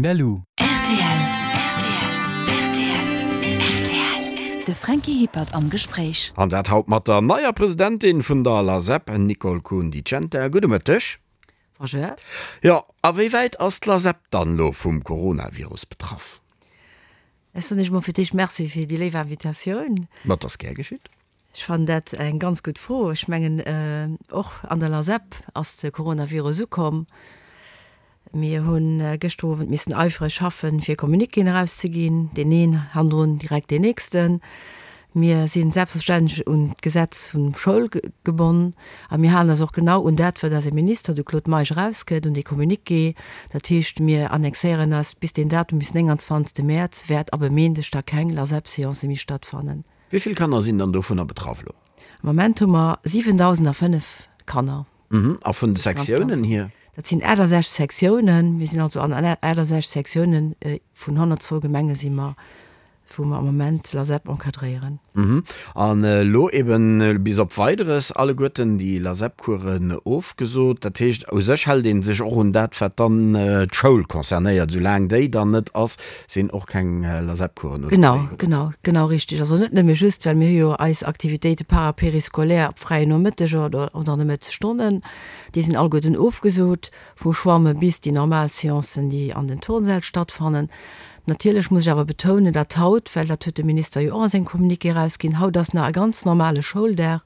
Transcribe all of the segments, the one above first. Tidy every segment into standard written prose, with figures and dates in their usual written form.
Berlou. Rtl, rtl, rtl, rtl. De Franky Hippert am Gespréich. An dat haut mat der neier Presidentin vun der LASEP, Nicole Kuhn-Di Centa. Gudde Mëtteg. Bonjour. Jo, a wéi wäit ass d'LASEP dann elo vum Coronavirus betraff? Ech soen Iech mol fir d'éischt Merci fir déi léif Invitatioun. Ma et ass gär geschitt. Ech fannen dat eng ganz gutt Fro. Ech mengen, och an der LASEP ass de Coronavirus ukomm. Mir hu gëschter Owend missen eifreg schaffen, fir Communiquéen erauszeginn, deen een hannendrun direkt deen nächsten. Mir si selbstverständlech un d'Gesetz vun Schoul gebonn a mir halen eis och genau un dat, wat eise Minister, de Claude Meisch, erausgëtt, un dee Communiqué. Dat heescht, mir annexéieren eis bis deen Datum, bis 29. Mäerz wäert ab e Méindeg da keng LASEP-Seance méi stattfannen. Wéi vill Kanner sinn dann dovunner betraff elo? Am Moment hu mer 7.005 Kanner. A vun de Sektiounen hier? Dat sinn 68 Sektiounen. Mir sinn also an 68 Sektiounen vun 102 Gemenge si mer, wou mer am Moment d'LASEP encadréieren. An elo eben bis op Weideres alleguerten déi LASEP-Coursen ofgesot. Dat heescht, u sech hält ee sech och un dat, wat dann d'Schoul concernéiert. Soulaang déi dann net ass, Sinn och keng LASEP-Coursen oder Genau, genau, genau richtig. Also net nëmme just, well mir hu jo eis Aktivitéite para-périscolaire op fräien Nomëtteger oder oder an de Mëttesstonnen, déi sinn alleguerten ofgesot, vu Schwamme bis déi normal Seancen, déi an den Turnsäll stattfannen. Natierlech muss ech awer betounen, datt haut, well dat huet de Minister jo och a sengem Communiqué erausginn, haut ass nach e ganz normale Schouldag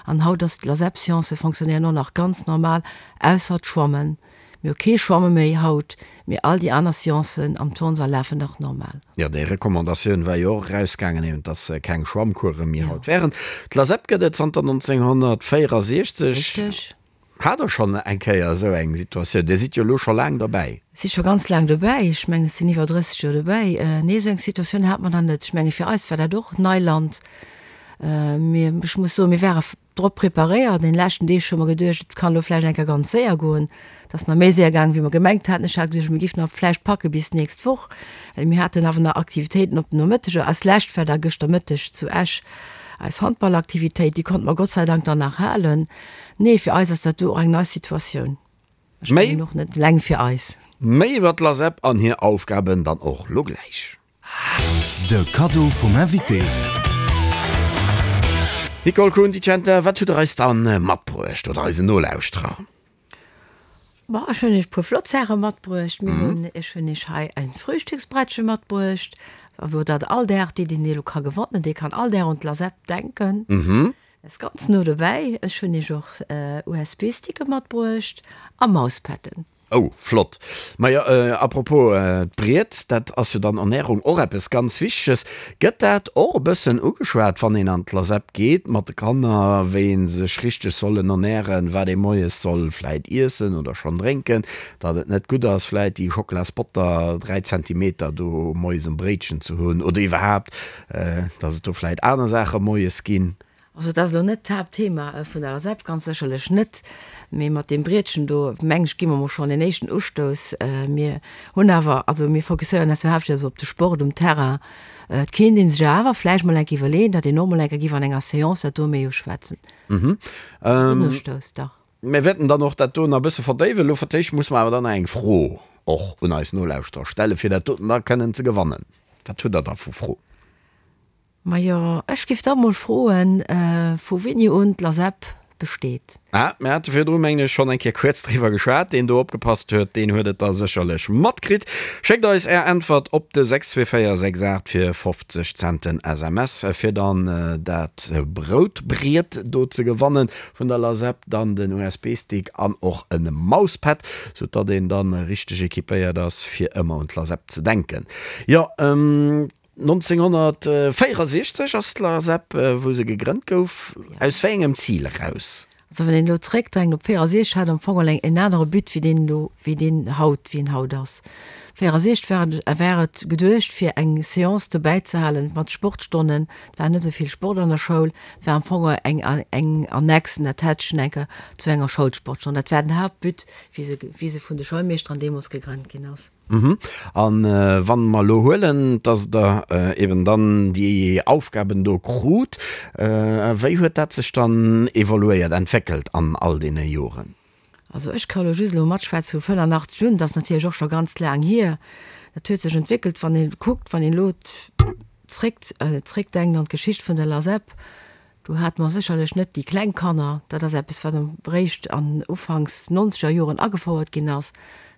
an haut ass d'LASEP-Seancë fonctionnéieren och nach ganz normal, ausser d'Schwammen. Mir hu kee Schwamme méi haut, mee all déi aner Seancen am Turnsall lafen nach normal. Jo, déi Recommandatioun war jo och erausgaangen, eben dass keng Schwammcourse méi haut wären. D'LASEP gëtt et zanter 1964. Richteg. Hat Der schonn eng Kéier esou eng Situatioun? Dir sidd jo elo scho laang derbäi. Ech si scho ganz laang dobäi. Ech mengen, ech sinn iwwer 30 Joer dobäi. Nee, esou eng Situatioun hate mer nach net. Ech menge fir eis war dat och Neiland. Mir, ech muss soen, mir ware drop preparéiert. An den leschten Deeg hu mer geduecht, et kann elo vläicht eng Kéier ganz séier goen. Et ass nach méi séier gaangen, wéi mer gemengt haten. Ech hat geduecht, mir giffen nach vläicht packe bis d'nächst Woch, well mir haten awer nach Aktivitéiten op den Nomëtteger. Als lescht war da gëschter Mëtteg zu Esch eis Handballaktivitéit, déi konnte mer Gott sei Dank dann nach halen. Nee, fir eis ass dat do och eng nei Situatioun. Ech mengen och net eleng fir eis. Méi iwwer d'LASEP an hir Aufgaben dann och lo gläich. De Kaddo vum Invité. Nicole Kuhn-Di Centa, wat hutt der eis dann matbruecht oder eisen Nolauschterer? Bon, ech hunn iech e puer flott Saache matbruecht. Mir hunn, ech hunn iech hei en Frühstücksbrettche matbruecht, wou dat all Dag, dee deen elo ka gewannen, dee kann all Dag un d'LASEP denken. Dat ass ganz no dobäi. Ech hunn iech och USB-Sticke matbruecht a Mauspadden. Oh, flott. Majo, à propos d'Briet, dat ass jo dann Ernährung och eppes ganz Wichteges. Gëtt dat och e bëssen ugeschwat, wann een an d'LASEP geet mat de Kanner, wéi ee sech richteg sollen ernähren, wat ee moies soll vläit iessen oder schonn drénken, datt et net gutt ass vläit déi Schocklasbotter 3 Zentimeter do moies um Bréitchen ze hunn oder iwwerhaapt, datt et do vläit aner Saache moies ginn? Also dat ass elo net d'Haaptthema vun der LSAP, ganz sécherlech net. Mee mat deem Brietchen do, meng ech, gi mer mol schonn een éischten Ustouss. Mir hunn awer, also mir fokusséieren eis jo haaptsächlech op de Sport um Terrain. Et kéint ee sech awer vläicht mol eng Kéier iwwerleeën, datt een och mol eng Kéier géif an enger Seance dat do méi uschwätzen. Dat ass e gudden Ustouss, dach. Mir wäerten dann och dat do nach e bësse verdéiwen. Elo fir d'éischt muss mer awer dann nach eng Fro och un eis Nolauschterer stellen, fir dat doten da kënnen ze gewannen. Wat hutt Der da vu Fro? Majo, ech giff da mol froen, vu wéini un d'LASEP besteet? Ah, mir hate virdru, mengen ech, schonn eng Kéier kuerz driwwer geschwat. Deen do opgepasst huet, deen huet et da sécherlech matkritt. Schéckt eis Är Äntwert op de 62468 fir 50 Cent den SMS, fir dann dat Broutbriet do ze gewannen vun der LASEP, dann den USB-Stick an och e Mauspad, sou datt een dann richteg equipéiert ass, fir ëmmer un d'LASEP ze denken. Jo. 1964 ass d'LASEP, wou se gegrënnt gouf, aus wéi engem Zil eraus? Also wann een elo zréckdenkt op 64, hat am Fong eleng en anere But wéi deen elo, wéi deen haut, wéi en haut ass. 64 war et, war et geduecht fir eng Seance dobäi ze halen mat Sportstonnen. Et war net esou vill Sport an der Schoul. Et war am Fong eng, eng Annexe, en Attachent enker zu enger Schoulsportstonn. Dat war den Haaptbut, wéi se, wéi se vun de Schoulmeeschteren deemools gegrënnt ginn ass. A wann mer elo huelen, dass Der eben dann déi Aufgaben do krut, wéi huet dat sech dann evoluéiert, entwéckelt an all deene Joren? Also ech ka elo just elo matschwätze vu 85 un, dat ass natierlech och scho ganz laang hier. Dat huet sech entwéckelt, wann ee kuckt, wann een elo zréck, zréckdenkt an d'Geschicht vun der LASEP, do hate mer sécherlech net déi kleng Kanner. Dat ass eppes, wat eréischt an ufanks nonzeger Joren agefouert ginn ass.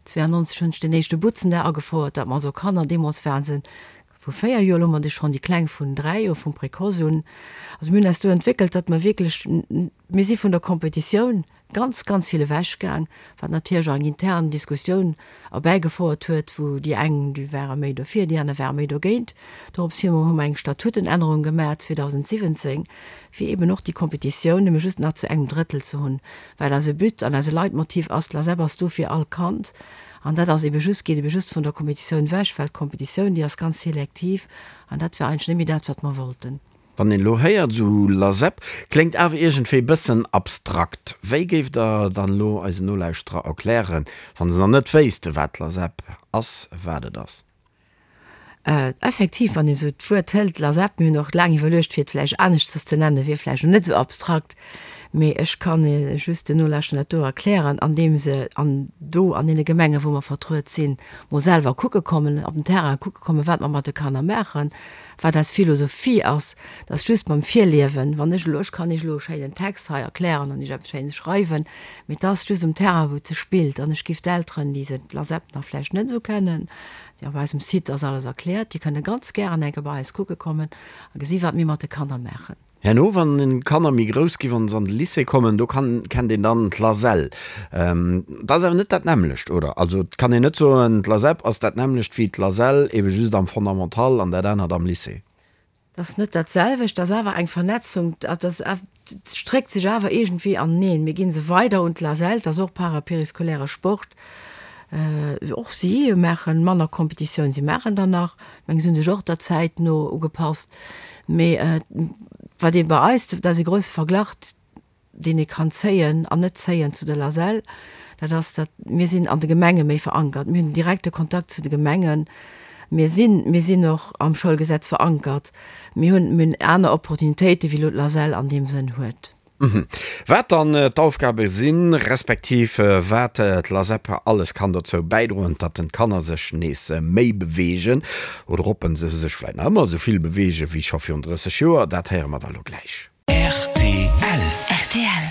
92 hunn ech den éischte Butzendag agefouert, dat mer also Kanner, deemools waren se vu 4 Joer, elo hu mer déi schonn déi kleng vun 3 Joer, vum Précoce un. Also mir hunn eis do entwéckelt, datt mer wierklech, mir si vun der Kompetitioun ganz, ganz vill ewech gaang, wat natierlech och eng intern Diskussioun erbäigefouert huet, wou déi eng, déi ware méi dofir, déi aner ware méi dogéint. Dorops hi hu mer eng Statutenännerung gemaach 2017, fir eeben och déi Kompetitioun nëmme just nach zu engem Drëttel ze hunn, well eise But an eise Leitmotiv ass, d'LASEP ass do fir all Kand. An dat ass eebe just, geet eebe just vun der Kompetitioun ewech, well d'Kompetitioun, déi ass ganz selektiv an dat war eigentlech net méi dat, wat mer wollten. Wann een elo héiert esou LASEP, kléngt awer iergendwéi bëssen abstrakt. Wéi géift Der dann elo eisen Nolauschterer erklären, wa se nach net wéisste wat d'LASEP ass, wat et ass? Effektiv, wann een esou d'Wuert hëlt, LASEP, mir hunn och laang iwwerluecht, fir et vläicht aneschters ze nennen, wier vläicht och net esou abstrakt, mee ech kann just den Nolauschterer dat do erklären, andeem se an do an deene Gemengen, wou mer vertruet sinn, mol selwer kucke kommen, op den Terrain kucke kommen, wat mer mat de Kanner maachen, wat eis Philosophie ass. Dat ass just mam Virliewen, wann ech elo, ech kann Iech elo e schéinen Text hei erklären an Iech eppes Schéines schreiwen, mee et ass just um Terrain, wou et sech spillt. An ech géif d'Elteren, déi se d'LASEP nach vläicht net esou kennen, Jo, op eisem Site ass alles erkläert. Dir kënnt ganz gären eng Kéier bei eis kucke kommen a gesi wat mir mat de Kanner maachen. Herno wann d'Kanner méi grouss ginn, wann se an de Lycée kommen, do kann, kennt een dann d'LASEL. Dat ass awer net dat nämmlecht, oder? Also et kann een net soen, d'LASEP ass dat nämmlecht wéi d'LASEL, ebe just am Fondamental an dat anert am Lycée. Dat ass net dat selwecht, dat ass awer eng Vernetzung, dat ass, stréckt sech awer iergendwéi aneneen. Mir gi se weider un d'LASEL, dat ass och parapériscolaire Sport. Och si maache manner Competitioun, si maachen der nach, ech mengen, si hu sech och der Zäit no ugepasst. Mee wat ee bei eis, dat ass ee grousse Verglach, deen ee kann zéien an net zéien zu der LASEL, dat ass, datt mir sinn an de Gemenge méi verankert. Mir hunn den direkte Kontakt zu de Gemengen. Mir sinn, mir sinn och am Schoulgesetz verankert. Mir hunn, mir hunn aner Opportunitéiten, wéi elo d'LASEL an deem Sënn huet. Wat dann d'Aufgabe sinn, respektiv wat d'LASEP alles kann dozou bäidroen, datt den d'Kanner sech nees méi beweegen oder ob se sech vläit nach ëmmer esou vill beweegen, wéi scho virun 30 Joer, dat héiere mer da lo gläich. Rtl. Rtl.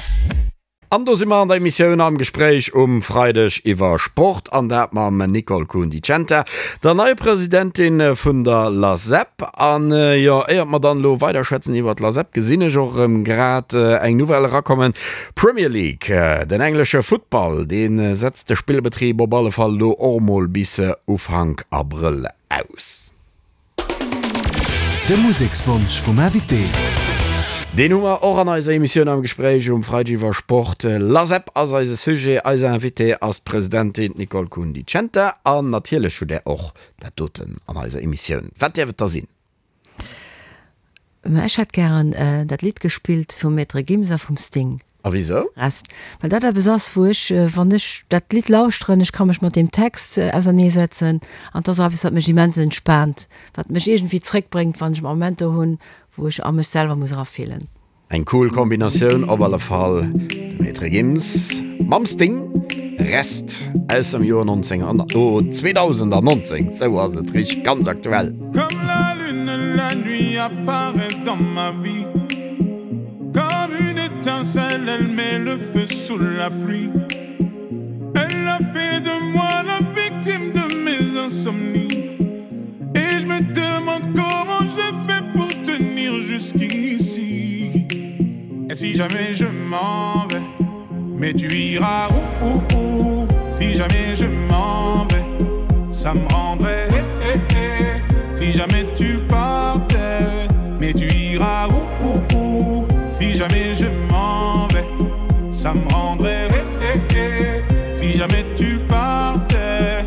An do si mer an der Emissioun Am Gespréich um Freideg iwwer Sport, an dat mam Nicole Kuhn-Di Centa, der neier Presidentin vun der LASEP. An jo, éiert mer dann elo weiderschwätzen iwwer d'LASEP, gesinn ech och erëm grad eng Nouvelle erakommen, Premier League, den englesche Futtball, dee setzt de Spillbetrib op alle Fall elo och mol bis Ufank Abrëll aus. De Musekswonsch vum Invité. Deen hu mer och an eiser Emissioun am Gespréich um Freideg iwwer Sport. LASEP ass eise Sujet. Eis Invitée ass d'Presidentin Nicole Kuhn-Di Centa. An natierlech hutt Där och dat doten an eiser Emissioun. Wat däerf et da sinn? Mä ech hätt gären dat Lidd gespillt vum Maître Gims a vum Sting. A wisou? Rest. Well dat eppes ass, wou ech, wann ech dat Lidd lauschteren, ech ka mech mat deem Text auserneesetzen an et ass och eppes, wat mech immens entspaant, wat mech iergendwéi zréckbréngt, wann ech Momenter hunn, wou ech a mech selwer muss erafillen. Eng cool Kombinatioun op alle Fall, de Maître Gims mam Sting, Rest aus dem Joer 19, oh 2019, sou ass et richteg, ganz aktuell. Comme la lune la nuit apparaît dans ma vie Comme une étincelle elle met le feu sous la pluie Elle a fait de moi la victime de mes insomnies Et je me demande comment j'ai fait pour tenir jusqu'ici Et si jamais je m'en vais Mais tu iras où, où, où Si jamais je m'en vais Ça me rendrait eh, eh, eh. Si jamais tu partais Mais tu iras où, où, où Si jamais je m'en vais Ça me rendrait eh, eh, eh. Si jamais tu partais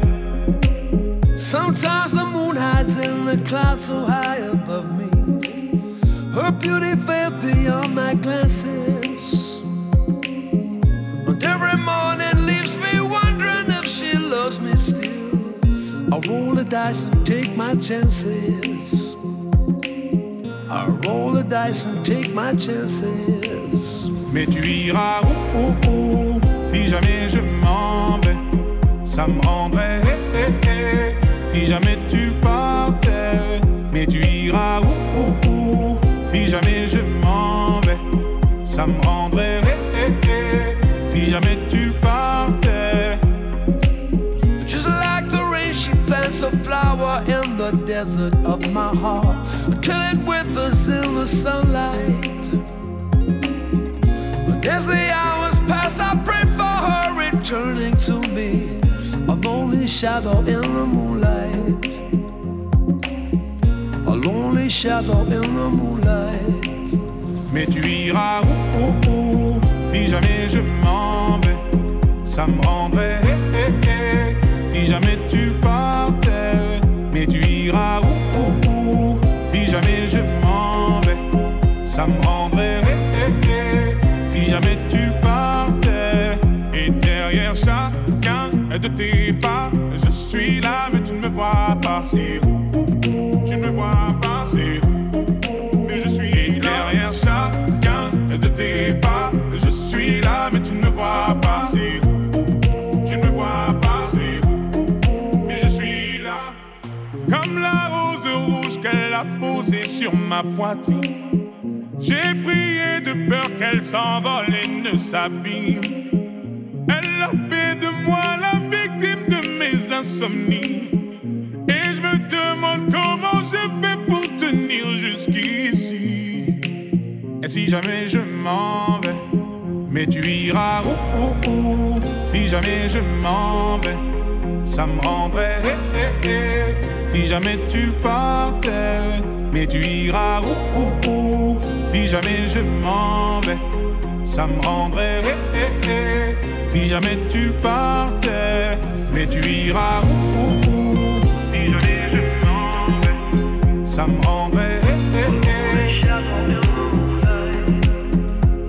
Sometimes the moon hides in the clouds so high above me Her beauty fell beyond my glances And every morning leaves me wondering if she loves me still I roll the dice and take my chances I roll the dice and take my chances Mais tu iras où, où, où Si jamais je m'en vais Ça me rendrait eh, eh, eh. Si jamais tu partais, mais tu iras où, où, où Si jamais je m'en vais, ça me rendrait eh, eh, eh. Si jamais tu partais. Just like the rain, she plants a flower in the desert of my heart. Till it withers in the sunlight. But as the hours pass, I pray for her returning to me. A lonely shadow in the moonlight. A lonely shadow in the moonlight. Mais tu iras où, où, où Si jamais je m'en vais, ça me rendrait eh, eh, eh. Si jamais tu partais, mais tu iras où, où, où Si jamais je m'en vais, ça me rendrait eh, eh, eh. Si jamais tu partais, et derrière chacun de tes pas, je suis là, mais tu ne me vois pas. C'est où, où, où Tu ne me vois pas. C'est où, où, où Mais je suis et derrière chacun de tes pas, je suis là, mais tu ne me vois pas. C'est où, où, où Tu ne me vois pas. C'est où, où, où Mais je suis là. Comme la rose rouge qu'elle a posée sur ma poitrine. J'ai prié de peur qu'elle s'envole et ne s'abîme. Elle a fait de moi la victime de mes insomnies. Et je me demande comment j'ai fait pour tenir jusqu'ici. Et si jamais je m'en vais, mais tu iras où, où, où Si jamais je m'en vais, ça me rendrait eh, eh, eh. Si jamais tu partais, mais tu iras où, où, où Si jamais je m'en vais, ça me rendrait eh, eh, eh. Si jamais tu partais, mais tu iras où, où, où Si jamais je m'en vais, ça me rendrait eh, eh, eh.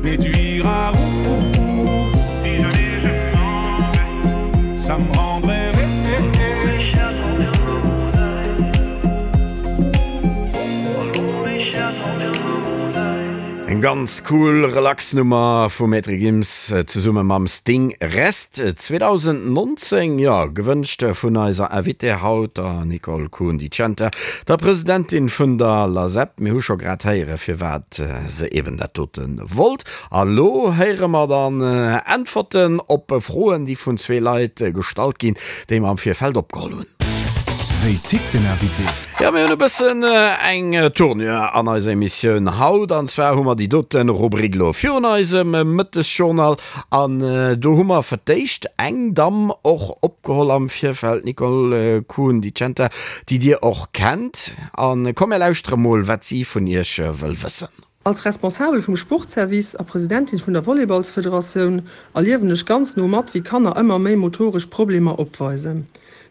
Mais tu iras où, où, où Si jamais je m'en vais, ça me rendrait eh, eh, eh. Eng ganz cool relax Nummer vum Maître Gims zesumme mam Sting Rest 2019, jo gewënscht vun eiser Invitée haut, der Nicole Kuhn-Di Centa, der Presidentin vun der LASEP. Mir hu scho grad héiere firwat se eben dat dote wollt. A lo héiere mer dann Äntwerten op Froen déi vun zwee Leit gestallt ginn, déi mer am Virfeld opgeholl hunn. Wéi tickt den Invité? Jo, mir hunn e bëssen eng Tournure an eiser Emissioun haut. An zwar hu mer déi dote Rubrik elo virun eisem Mëttesjournal. An do hu mer fir d'éischt eng Damm och opgeholl am Virfeld, d'Nicole Kuhn-Di Centa, déi Dir och kennt. A komm, mir lauschtere mol, wat si vun Iech wëll wëssen. Als Responsabel vum Sportservice a Presidentin vun der Volleyballsfederatioun erliewen ech ganz no mat, wéi Kanner ëmmer méi motoresch Problemer opweisen.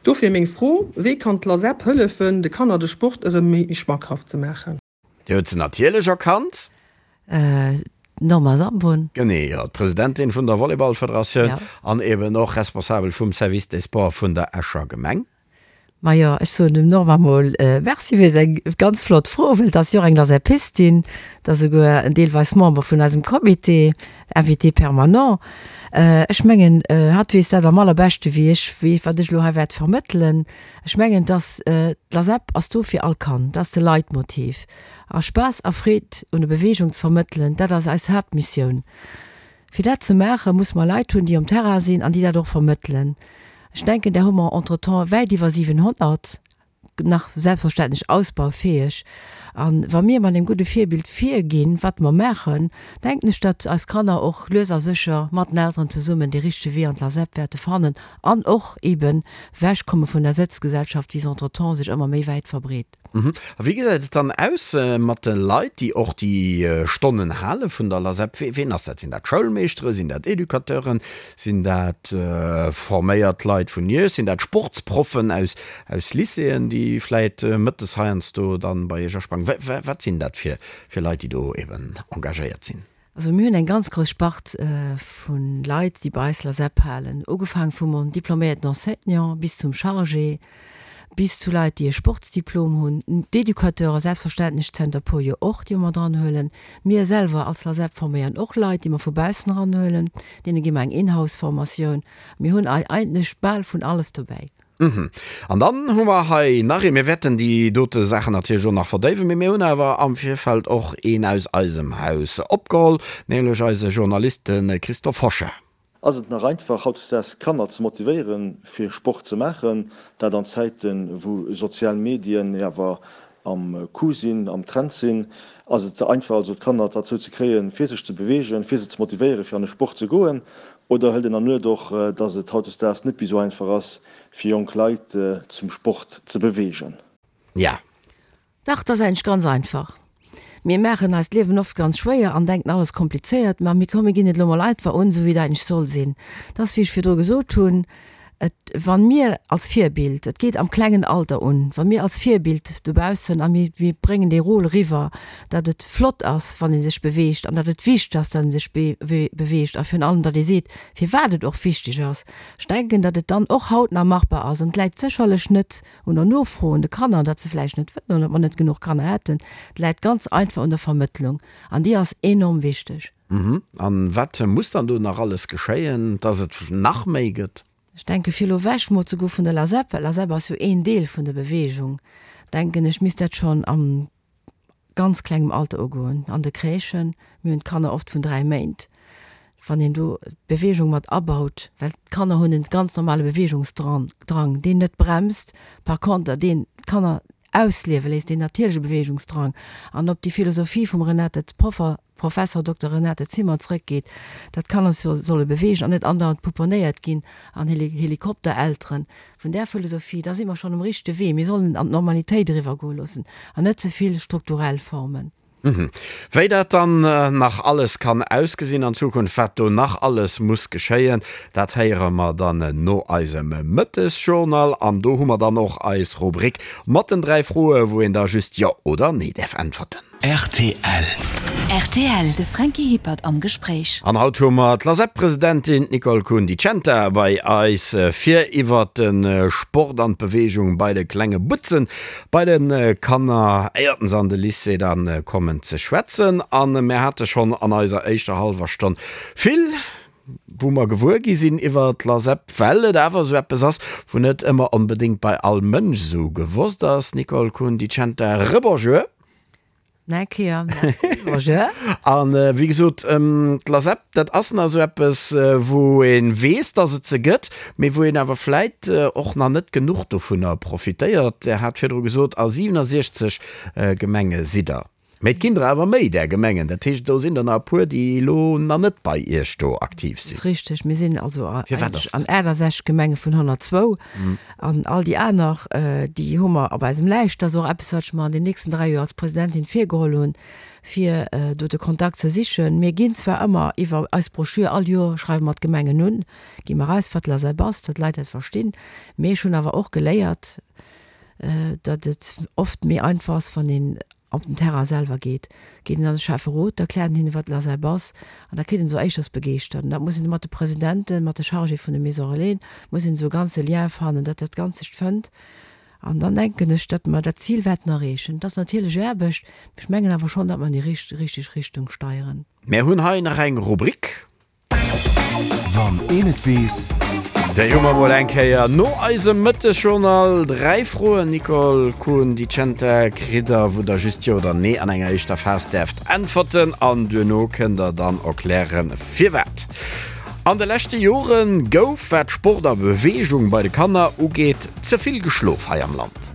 Dofir meng Fro, Wéi kann d'LASEP hëllefen, de Kanner de Sport erëm méi schmackhaft ze maachen? Dir hutt se natierlech erkannt. D'Norma Sambon. Genee, jo, d'Presidentin vun der Volleyballfederatioun an eben och Responsabel vum Service des Sports vun der Escher Gemeng. Majo, ech soen dem Norma mol Merci fir seng ganz flott Fro, well et ass jo och eng Laserpistin, et ass esouguer en deelweis Member vun eisem Comité, Invité permanent. Ech mengen, hatt weess dat am allerbeschte wéi ech, wéi wat ech elo hei wäert vermëttelen. Ech mengen, dass d'Lasep ass do fir all Kand, dat ass de Leitmotiv. A Spaass a Freed un der Beweegung ze vermëttelen, dat ass eis Haaptmissioun. Fir dat ze maachen, musse mer Leit hunn, déi um Terrain sinn an déi dat och vermëttelen. Ech denken, där hu mer entretemps wäit iwwer 700, nach selbstverständlech ausbaufäeg. A wa mir mat engem gudde Virbild virginn, wat mer maachen, denken ech, datt eis Kanner och lues a sécher mat den Elteren zesummen dee richtege Wee an d'LASEP wäerte fannen an och eeben ewechkomme vun der Sëtzgesellschaft, wéi se entretemps sech ëmmer méi wäit verbreet. A wéi gesäit et dann aus mat de Leit, déi och déi Stonnen hale vun der LASEP? Ween ass dat? Sinn dat Schoulmeeschteren? Sinn dat Educateuren? Sinn dat forméiert Leit vun Iech? Sinn dat Sportsproffen aus Lycéeën, déi vläit mëttes heiansdo dann bei Iech asprangen? Wat sinn dat fir Leit, déi do eben engagéiert sinn? Also mir hunn eng ganz grouss Spart vu Leit, déi bei eis LASEP halen, ugefaangen vum diploméierten Enseignant bis zum Chargé, bis zu Leit, déi e Sportsdiplom hunn, d'Educateure selbstverständlech zënter e puer Joer och, déi mer dran huelen. Mir selwer als LASEP forméieren och Leit, déi mer vu baussen eranhuelen, deene gi mer eng Inhouse-Formatioun. Mir hunn eigentlech bal vun alles dobäi. An dann hu mer hei nach een, mir wäerten déi dote Saachen natierlech och nach verdéiwen, mee mir hunn awer am Virfeld och een aus eisem Haus opgeholl, nämlech eise Journalist, de Christophe Hochard. Ass et nach einfach hautdesdaags Kanner ze motivéieren fir Sport ze maachen, dat an Zäiten wou sozial Medien jo awer am Coup sinn, am Trend sinn? Ass et einfach also d'Kanner derzou ze kréien fir sech ze beweegen, fir se ze motivéieren fir an de Sport ze goen? Oder hëlt een an Nuet och, dass et hautdesdaags net méi sou einfach ass fir jonk Leit zum Sport ze beweegen? Ja. Dach, 't ass eigentlech ganz einfach. Mir maachen eis d'Liewen oft ganz schwéier an denken alles komplizéiert, ma mir komm mir ginn et elo mol einfach un, esou wéi et eigentlech soll sinn. 't ass wéi ech virdru gesot hunn, et wann mir als Virbild, et geet am klengen Alter un, wa mir als Virbild dobaussen a mir mir bréngen dee Rôle eriwwer, datt et flott ass wann ee sech beweegt an datt et wichteg ass, datt ee sech beweegt a virun allem datt ee seet firwat et och wichteg ass. Ech denken, datt et dann och haut nach machbar ass an et läit sécherlech net un der Nofro un de Kanner, datt se vläicht net wëllen oder datt mer net genuch Kanner hätten. Et läit ganz einfach un der Vermëttlung an déi ass enorm wichteg. An wat muss dann do nach alles geschéien, dass et nach méi gëtt? Ech denke fir elo ewech mol ze goe vun der LASEP, well LASEP ass jo een Deel vun der Bewegung, denken ech, misst dat schonn am ganz klengem Alter ugoen, an de Crèchen. Mir hunn d'Kanner oft vun 3 Méint, wann een do d'Bewegung mat abaut, well d'Kanner hunn en ganz normale Bewegungsdrang, deen net bremst, par conter deen d'Kanner ausliewe léisst, deen natierleche Bewegungsdrang, an op déi Philosophie vum Renate Proffer, Professor Dokter Renate Zimmer zrëckgeet, datt d'Kanner sech solle beweegen an net andauernd pouponnéiert ginn an Helikopterelteren. Vun där Philosophie, da si mer schonn um richtege Wee. Mir sollen an d'Normalitéit eriwwergoe loossen an net ze vill strukturell Formen. Wéi dat dann nach alles kann ausgesinn an Zukunft, wat do nach alles muss geschéien, dat héiere mer dann no eisem Mëttesjournal. An do hu mer dann och eis Rubrik mat den 3 Froe wou een da just Jo oder Nee däerf äntwerten. Rtl. Rtl, De Franky Hippert am Gespréich. An haut hu mer d'LASEP-Presidentin, d'Nicole Kuhn-Di Centa, bei eis, fir iwwert de Sport an d'Beweegung bei de klenge Butzen Bei de Kanner, éierten se an de Lycée da kommen, ze schwätzen. A mir hate schonn an eiser éischter hallwer Stonn vill, wou mer gewuer gi sinn iwwer d'LASEP, well et awer esou eppes ass, wou net ëmmer onbedéngt bei all Mënsch esou gewosst ass. Nicole Kuhn-Di Centa, Rebonjour. Eng Kéier merci, Roger. An wéi gesot, d'LASEP, dat ass nach esou eppes, wou ee weess, dass et se gëtt, mee wou een awer vläit och nach net genuch dovunner profitéiert. Der hat virdru gesot, a 67 Gemenge sidd Der. Mee et ginn der awer méi där Gemengen. Dat heescht, do sinn der nach e puer, déi elo nach net bei Iech do aktiv sinn. Dat ass richteg. Mir sinn also an 68 Gemenge vun 102. An all déi aner, déi hu mer op eisem Läischt. Dat ass och eppes, wat ech mer an den nächsten 3 Joer als Presidentin virgeholl hunn, fir do de Kontakt ze sichen. Mir ginn zwar ëmmer iwwer eis Broschür, all Joer schreiwe mer d'Gemengen un, gi mer eraus, wat d'LASEP ass, datt d'Leit dat verstinn. Mee ech hunn awer och geléiert, datt et oft méi einfach ass, wann een op den Terrain selwer geet, geet een an de Schäfferot, da kläert een hinne wat l'ASEB ass an da kritt een esou éischters begeeschtert. An dat muss een mat de Presidenten, mat de Chargé vun de Maisons Relais, muss een esou e ganze Lien fannen, datt dat Ganzt sech fënnt. An dann denken ech, datt mer dat Zil wäerten erreechen. Et ass natierlech Aarbecht, mee ech mengen awer schonn, datt mer an déi richteg Richtung steieren. Mär hunn hei nach eng Rubrik. Wann een et weess. Déi hu mer mol eng Kéier no eisem Mëttesjournal. 3 Froen, Nicole Kuhn, Dicenta kritt der, wou der just Jo oder Nee an enger éischter Phas däerft äntwerten an duerno kënnt der dann erklären, firwat. An de leschte Jore gouf, wat Sport a Beweegung bei de Kanner ugeet, ze vill geschlof hei am Land.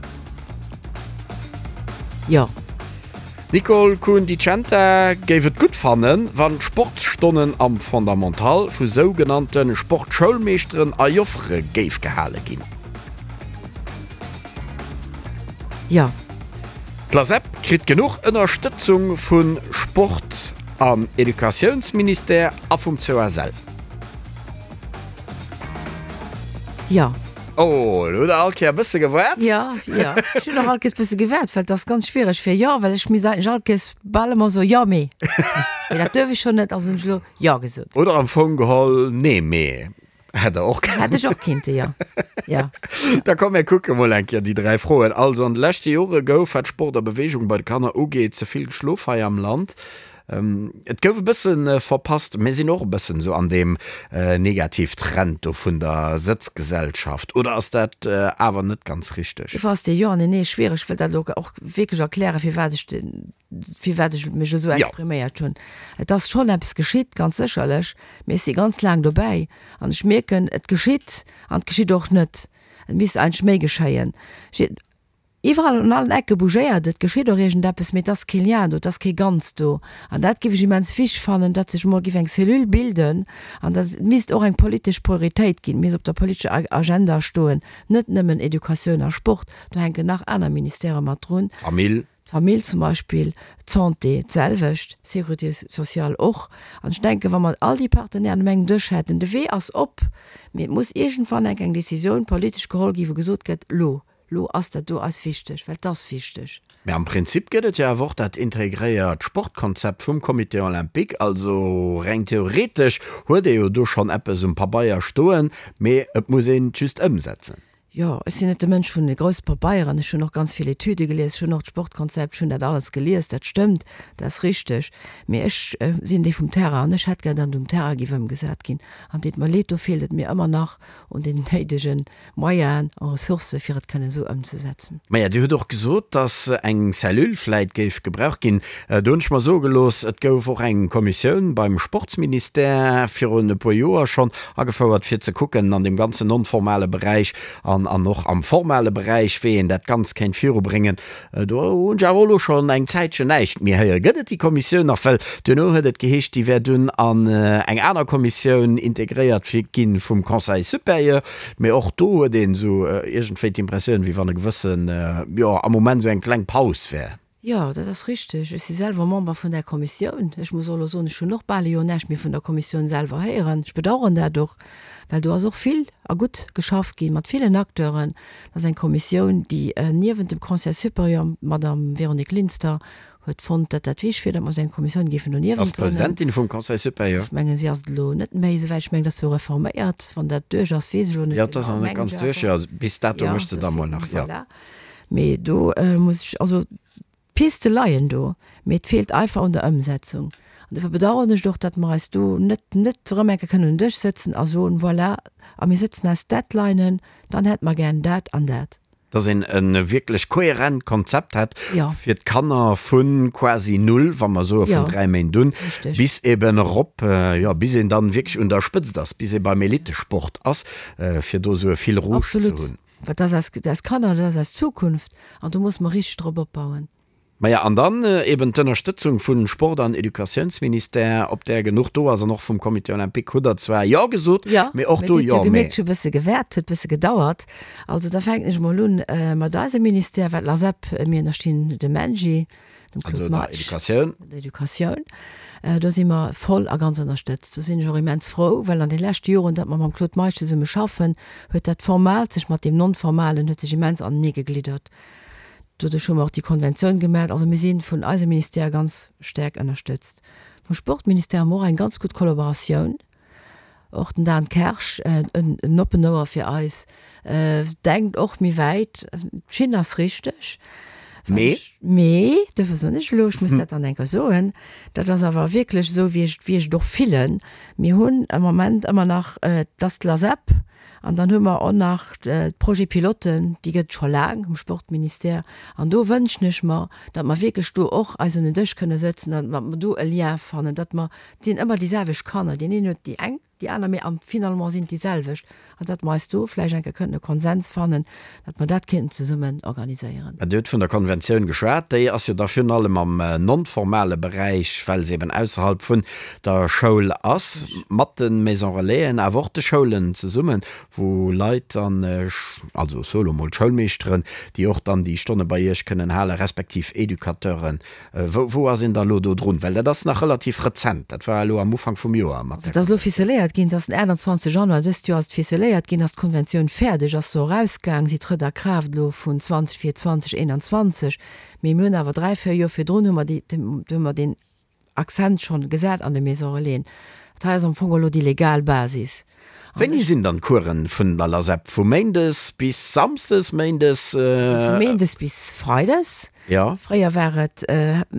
Jo. D'Nicole Kuhn-Di Centa géif et gutt fannen, wann d'Sportsstonnen am Fondamental vu sougenannte Sportschoulmeeschteren a Joffere géif gehale ginn. Jo. D'LASEP kritt genuch Ënnerstëtzung vu Sport an Educatiounsministère a vum COSL. Jo. Oh, elo hutt Der all Kéier e bësse gewaart. Jo, jo. Ech hunn och all Kéiers e bësse gewaart, well et ass ganz schwiereg fir jo, well ech misst eigentlech all Kéiers bal ëmmer soen, jo, mee. Mee dat duerf ech jo net, also hunn ech elo jo gesot. Oder am Fong geholl nee, mee. Hätt Der och kënnen. Hätt ech och kinnte, jo. Jo. Da komm, mir kucke mol eng Kéier déi 3 Froen. Also, an de leschte Jore gouf, wat Sport a Beweegung bei de Kanner ugeet, ze vill geschlof hei am Land. Et gouf e bësse verpasst. Mir sinn och e bëssen esou an deem Negativtrend do vun der Sëtzgesellschaft. Oder ass dat awer net ganz richteg? Dofir ass dee Jo an deen Nee schwiereg. Ech wëll dat elo och wierklech erklären, firwat ech firwat ech mech esou expriméiert hunn. Et ass schonn eppes geschitt, ganz sécherlech, mee ech si ganz laang dobäi an ech mierken, et geschitt an et geschitt och net. Et misst eigentlech méi geschéien. Iwwerall un allen Ecke bougéiert et, geschitt och iergendeppes, mee et ass kee Lien do, et ass kee Ganzt do. An dat géif ech immens wichteg fannen, datt sech emol géif eng Cellule bilden an dat et misst och eng politesch Prioritéit ginn, misst op der politescher Agenda stoen, net nëmmen Educatioun a Sport, do hänken nach aner Ministèrë mat drun. Famill. D'Famill zum Beispill, d'Santé d'selwecht, d'Sécurité sociale och. An ech denken, wa mer all déi Partenairen um engem Dësch hätten, de Wee ass op, mee et muss iergendwann enk eng Décisioun politesch geholl ginn, wou gesot gëtt, Lo, lo ass dat do eis wichteg, well et ass wichteg. Mä am Prinzip gëtt et jo awer och dat integréiert Sportkonzept vum Comité olympique. Also reng theoretesch huet ee jo do schonn eppes um Pabeier stoen, mee et muss een et just ëmsetzen. Jo, ech sinn net de Mënsch vun de grousse Pabeieren. Ech hunn och ganz vill Etüde gelies, ech hunn och d'Sportkonzept, ech hunn dat alles gelies, dat stëmmt, dat ass richteg. Mee ech sinn dee vum Terrain an ech hätt gär, datt et um Terrain géif ëmgesat ginn. An deet mer leed, do feelt et mir ëmmer nach un den néidege Moyenen a Ressourcë fir et kënnen esou ëmzesetzen. Maja, Dir hutt och gesot, datt eng Cellule vläit géif gebraucht ginn. Do hunn ech mer soe gelooss, et gouf och eng Kommissioun beim Sportsministère virun e puer Joer schonn agefouert, fir ze kucken an deem ganzen non-formale Beräich an an och am formale Beräich, wéi een dat Ganzt kéint virubréngen. Do hunn ech awer och elo schonn eng Zäitchen näischt méi héieren. Gëtt et déi Kommissioun nach? Well duerno huet et geheescht, déi wär dunn an eng aner Kommissioun integréiert gi vum Conseil supérieur. Mee och do huet een esou iergendwéi d'Impressioun, wéi wann e gewëssen, jo, am Moment esou eng kleng Paus wär. Jo, dat ass richteg. Ech si selwer Member vun där Kommissioun. Ech muss och elo soen, ech hunn och bal e Joer näischt méi vun der Kommissioun selwer héieren. Ech bedauern dat och, well do ass och vill a gutt geschafft gi mat villen Acteuren. Dat ass eng Kommissioun, déi niewent dem Conseil supérieur, d'Madame Véronique Linster huet fonnt, datt dat wichtig wier, datt mer esou eng Kommissioun géifen doniewent Ass grënnen. d'Presidentin vum Conseil supérieur. Ech mengen, si ass et elo net méi, souwäit ech mengen, dat ass jo reforméiert. Wann dat duerch ass, weess ech elo net Jo, et ass genau, nach net mengen ganz ech duerch. awer. Jo, bis dato Jo, mécht se da mol nach, jo. Voilà. Mee do muss ech, also d'Piste leien do, mee et feelt einfach un der Ëmsetzung. An dofir bedauern ech et och, datt mer eis do net net erëm eng Kéier kënnen un den Dësch sëtzen a soen, voilà, a mir sëtzen eis Deadlinen, dann hätte mer gär dat an dat. Datt een e wierklech kohärent Konzept hätt fir d'Kanner vu quasi null, wa mer soe vun 3 Méint un, bis eben erop, jo, bis een dann wierklech un der Spëtzt ass, bis ee beim Elitesport ass, fir do esou e Fil rouge ze hunn. Well dat ass eis Kanner, dat ass eis Zukunft an do musse mer richteg drop opbauen. Maja, an dann eben d'Ënnerstëtzung vu Sport an Educatiounsministère, ob där genuch do ass, an och vum Comité olympique hutt Der zwar Jo gesot, mee och do Jo, mee. Dir hutt jo gemierkt, ech hu e bësse gewäert, huet e bësse gedauert. Also da fänken ech emol un mat eisem Ministère, wat l'ASEP, mir ënnerstinn dem MENJI, dem Claude Meisch. Also der Educatioun. Der Educatioun. Do si mer voll a ganz ënnerstëtzt. Do sinn ech och immens frou, well an de leschte Joren, datt mer mam Claude Meisch zesumme schaffen, huet dat Formaalt sech mat deem Non-Formalen huet sech immens anenee gegliddert. Doduerch hu mer och déi Konventioun gemat. Also mir si vun eisem Ministère ganz staark ënnerstëtzt. Vum Sportministère hu mer och eng ganz gutt Kollaboratioun. Och den Dan Kersch, en oppen Ouer fir eis, denkt och méi wäit. D'Schinn ass richteg. Mee? Mee, dofir soen ech elo, ech muss dat dann eng Kéier soen, dat ass awer wierklech esou, wéi ech, wéi ech et och fillen. Mir hunn am Moment ëmmer nach, et ass d'LASEP an dann hu mer och nach d'Projet-piloten, déi gëtt et scho laang um Sportministère. An do wënschen ech mer, datt mer wierklech do och eis un den Dësch kënne sëtzen an datt mer do e Lien fannen, datt mer Et sinn ëmmer déi selwecht Kanner, deen een huet déi eng, déi aner, mee am finalement sinn et déi selwecht. An datt mer eis do vläicht eng Kéier kënnten e Konsens fannen, datt mer dat kéinten zesummen organiséieren. Dir hutt vun der Konventioun geschwat. Déi ass jo da virun allem am non-formale Beräich, well se eben ausserhalb vun der Schoul ass, mat de Maison Relaisen, awer och de Schoulen zesummen, wou Leit dann, also ech soe lo mol d'Schoulmeeschteren, déi och dann déi Stonne bei Iech kënnen halen, respektiv Educateuren, Wou, wou ass een da elo do drun? Well dat ass nach relativ rezent, dat war elo am Ufank vum Joer mat där. Dat ass elo ficeléiert ginn, et ass den 28 Januar dëst Joer ass et ficeléiert ginn, ass d'Konventioun fäerdeg, ass se erausgaang, si trëtt a Kraaft elo vun 20 fir 2021. Mee mir hunn awer 3, 4 Joer virdrun hu mer déi, hu mer deen Accent schonn gesat an de Maison Relaisen. Dat hei ass am Fong elo déi legal Basis. Wéini sinn dann d'Coursen vun der LASEP? Vu Méindes bis Samsdes, Méindes? Also vu Méindes bis Freides. Jo. Fréier war et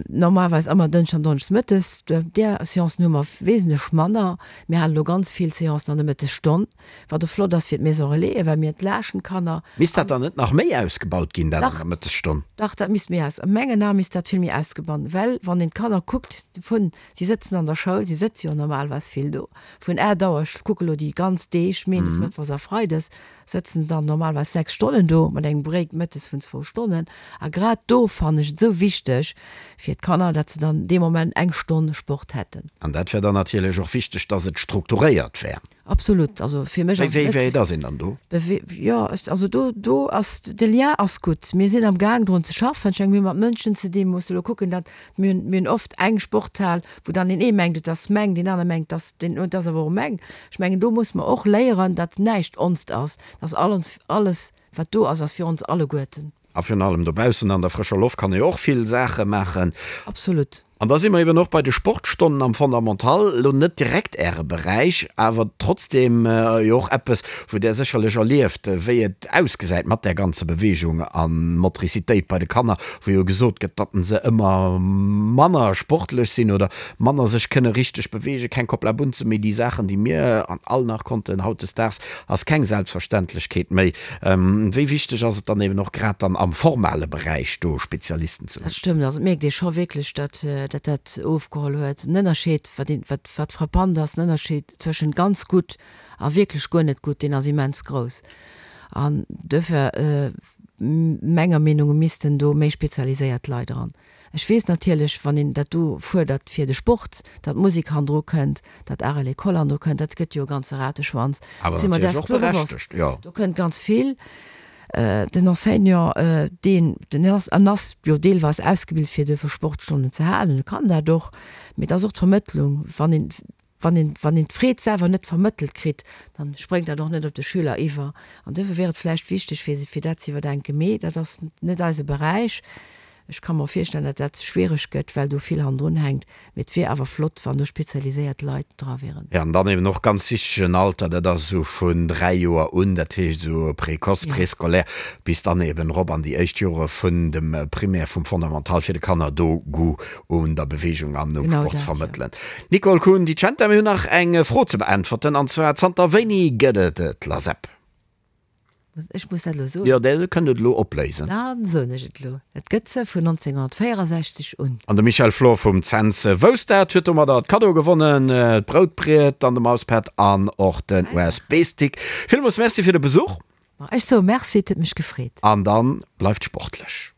normalerweis ëmmer Dënschdes an Donneschdes mëttes. Där Seancen hu mer wesentlech manner. Mir halen elo ganz vill Seancen an der Mëttesstonn, wat och flott ass fir d'Maison Relais, well mir entlaaschten d'Kanner. Misst dat dann net nach méi ausgebaut ginn, dat an der Mëttesstonn? Dach, dat misst méi aus, a mengen Ae misst dat vill méi ausgebaut, well wann een d'Kanner kuckt vun, si sëtzen an der Schoul, si sëtze jo normalerweis vill do, Vun 8 Auer, ech kucke lo déi ganz Deeg, Méindes, Mëttwochs a Freides, sëtzen dann normalerweis 6 Stonnen do, mat engem Break mëttes vun zwou Stonnen. A grad do fannen ech et esou wichteg fir d'Kanner, datt se dann dee Moment eng Stonn Sport hätten. An dat wär dann natierlech och wichteg, datt et strukturéiert wär. Absolut, also fir mech ass et net. Wéi wäit ass een dann do? Jo, also do, do ass, de Lien ass gutt. Mir sinn am Gaang drun ze schaffen. Ech menge mir hu mat Mënschen ze dinn, musse elo kucken, datt mir hunn, mir hunn oft eng Sporthal, wou dann deen ee mengt, et ass meng, deen anere mengt, et ass deen, et ass awer och meng. Ech mengen, do muss mer och léieren, datt näischt onst ass, datt all ons, alles wat do ass, ass fir ons alleguerten. A virun allem dobaussen an der frëscher Loft kann ee jo och vill Saache maachen. Absolut. An da si mer eben och bei de Sportstonnen am Fondamental, elo net direkt Äre Beräich, awer trotzdem jo och eppes, wou Der sécherlech erlieft, wéi et ausgesäit mat där ganzer Beweegung a Motricitéit bei de Kanner, wou jo gesot gëtt, datt se ëmmer manner sportlech sinn oder manner sech kënne richteg beweegen, keng Koplabunze méi, déi Saachen, déi mir all nach konnten. Hautdesdaags ass keng Selbstverständlechkeet méi. Wéi wichteg ass et dann eben och grad dann am formale Beräich do Spezialisten ze hunn? Dat stëmmt. Also et mierkt ee scho wierklech, datt dat ofgeholl huet. Den Ënnerscheed, wat een, wat, wat frappant ass, den Ënnerscheed zwëschent ganz gutt a wierklech guer net gutt, deen ass immens grouss. An duerfir, menger Meenung no missten do méi spezialiséiert Leit eran. Ech weess natierlech, wann een dat do fuerdert fir de Sport, datt d'Musek hannendru kënnt, datt Art à l'école hannendru kënnt, dat gëtt jo e ganze Rateschwanz. Awer Si mer natierlech däers och kloer bewosst. berechtegt, jo. Do kënnt ganz vill. Den Enseignant, deen, den ass, en ass jo deelweis ausgebilt fir duerfir Sportstonnen ze halen, e kann dat och, mee et ass och d'Vermëttlung, wann een, Wann een, wann een d'Freed selwer net vermëttelt kritt, dann spréngt dat och net op de Schüler iwwer. An duerfir wier et vläicht wichteg, fir, fir dat ze iwwerdenken. Mee dat ass net eise Beräich. Ech ka mer virstellen, datt dat schwiereg gëtt, well do vill hannendrun hänkt. Mee et wier awer flott, wann do spezialiséiert Leit dra wieren. Jo, an dann eben och ganz wichteg en Alter, dat ass esou vun 3 Joer un, dat heescht esou Précoce, Préscolaire, bis dann eben erop an déi éischt Jore vun dem Primaire, vum Fondamental, fir de Kanner do Goût un der Beweegung an um Sport ze vermëttelen. Nicole Kuhn Di Centa, mir hunn nach eng Fro ze beäntwerten, an zwar, Zanter wéini gëtt et d'LASEP? Ech muss dat elo soen? Jo, Dir kënnt et elo opléisen. Dann soen ech et elo, Et gëtt se vun 1964 un. An de Michel Flor vum Cents wousst dat, huet domadder d'Kaddo gewonnen, d'Broutbriet an de Mauspad an och den USB-Stick. Villmools Merci fir de Besuch. Ech soe Merci, et huet mech gefreet. An dann bleift sportlech.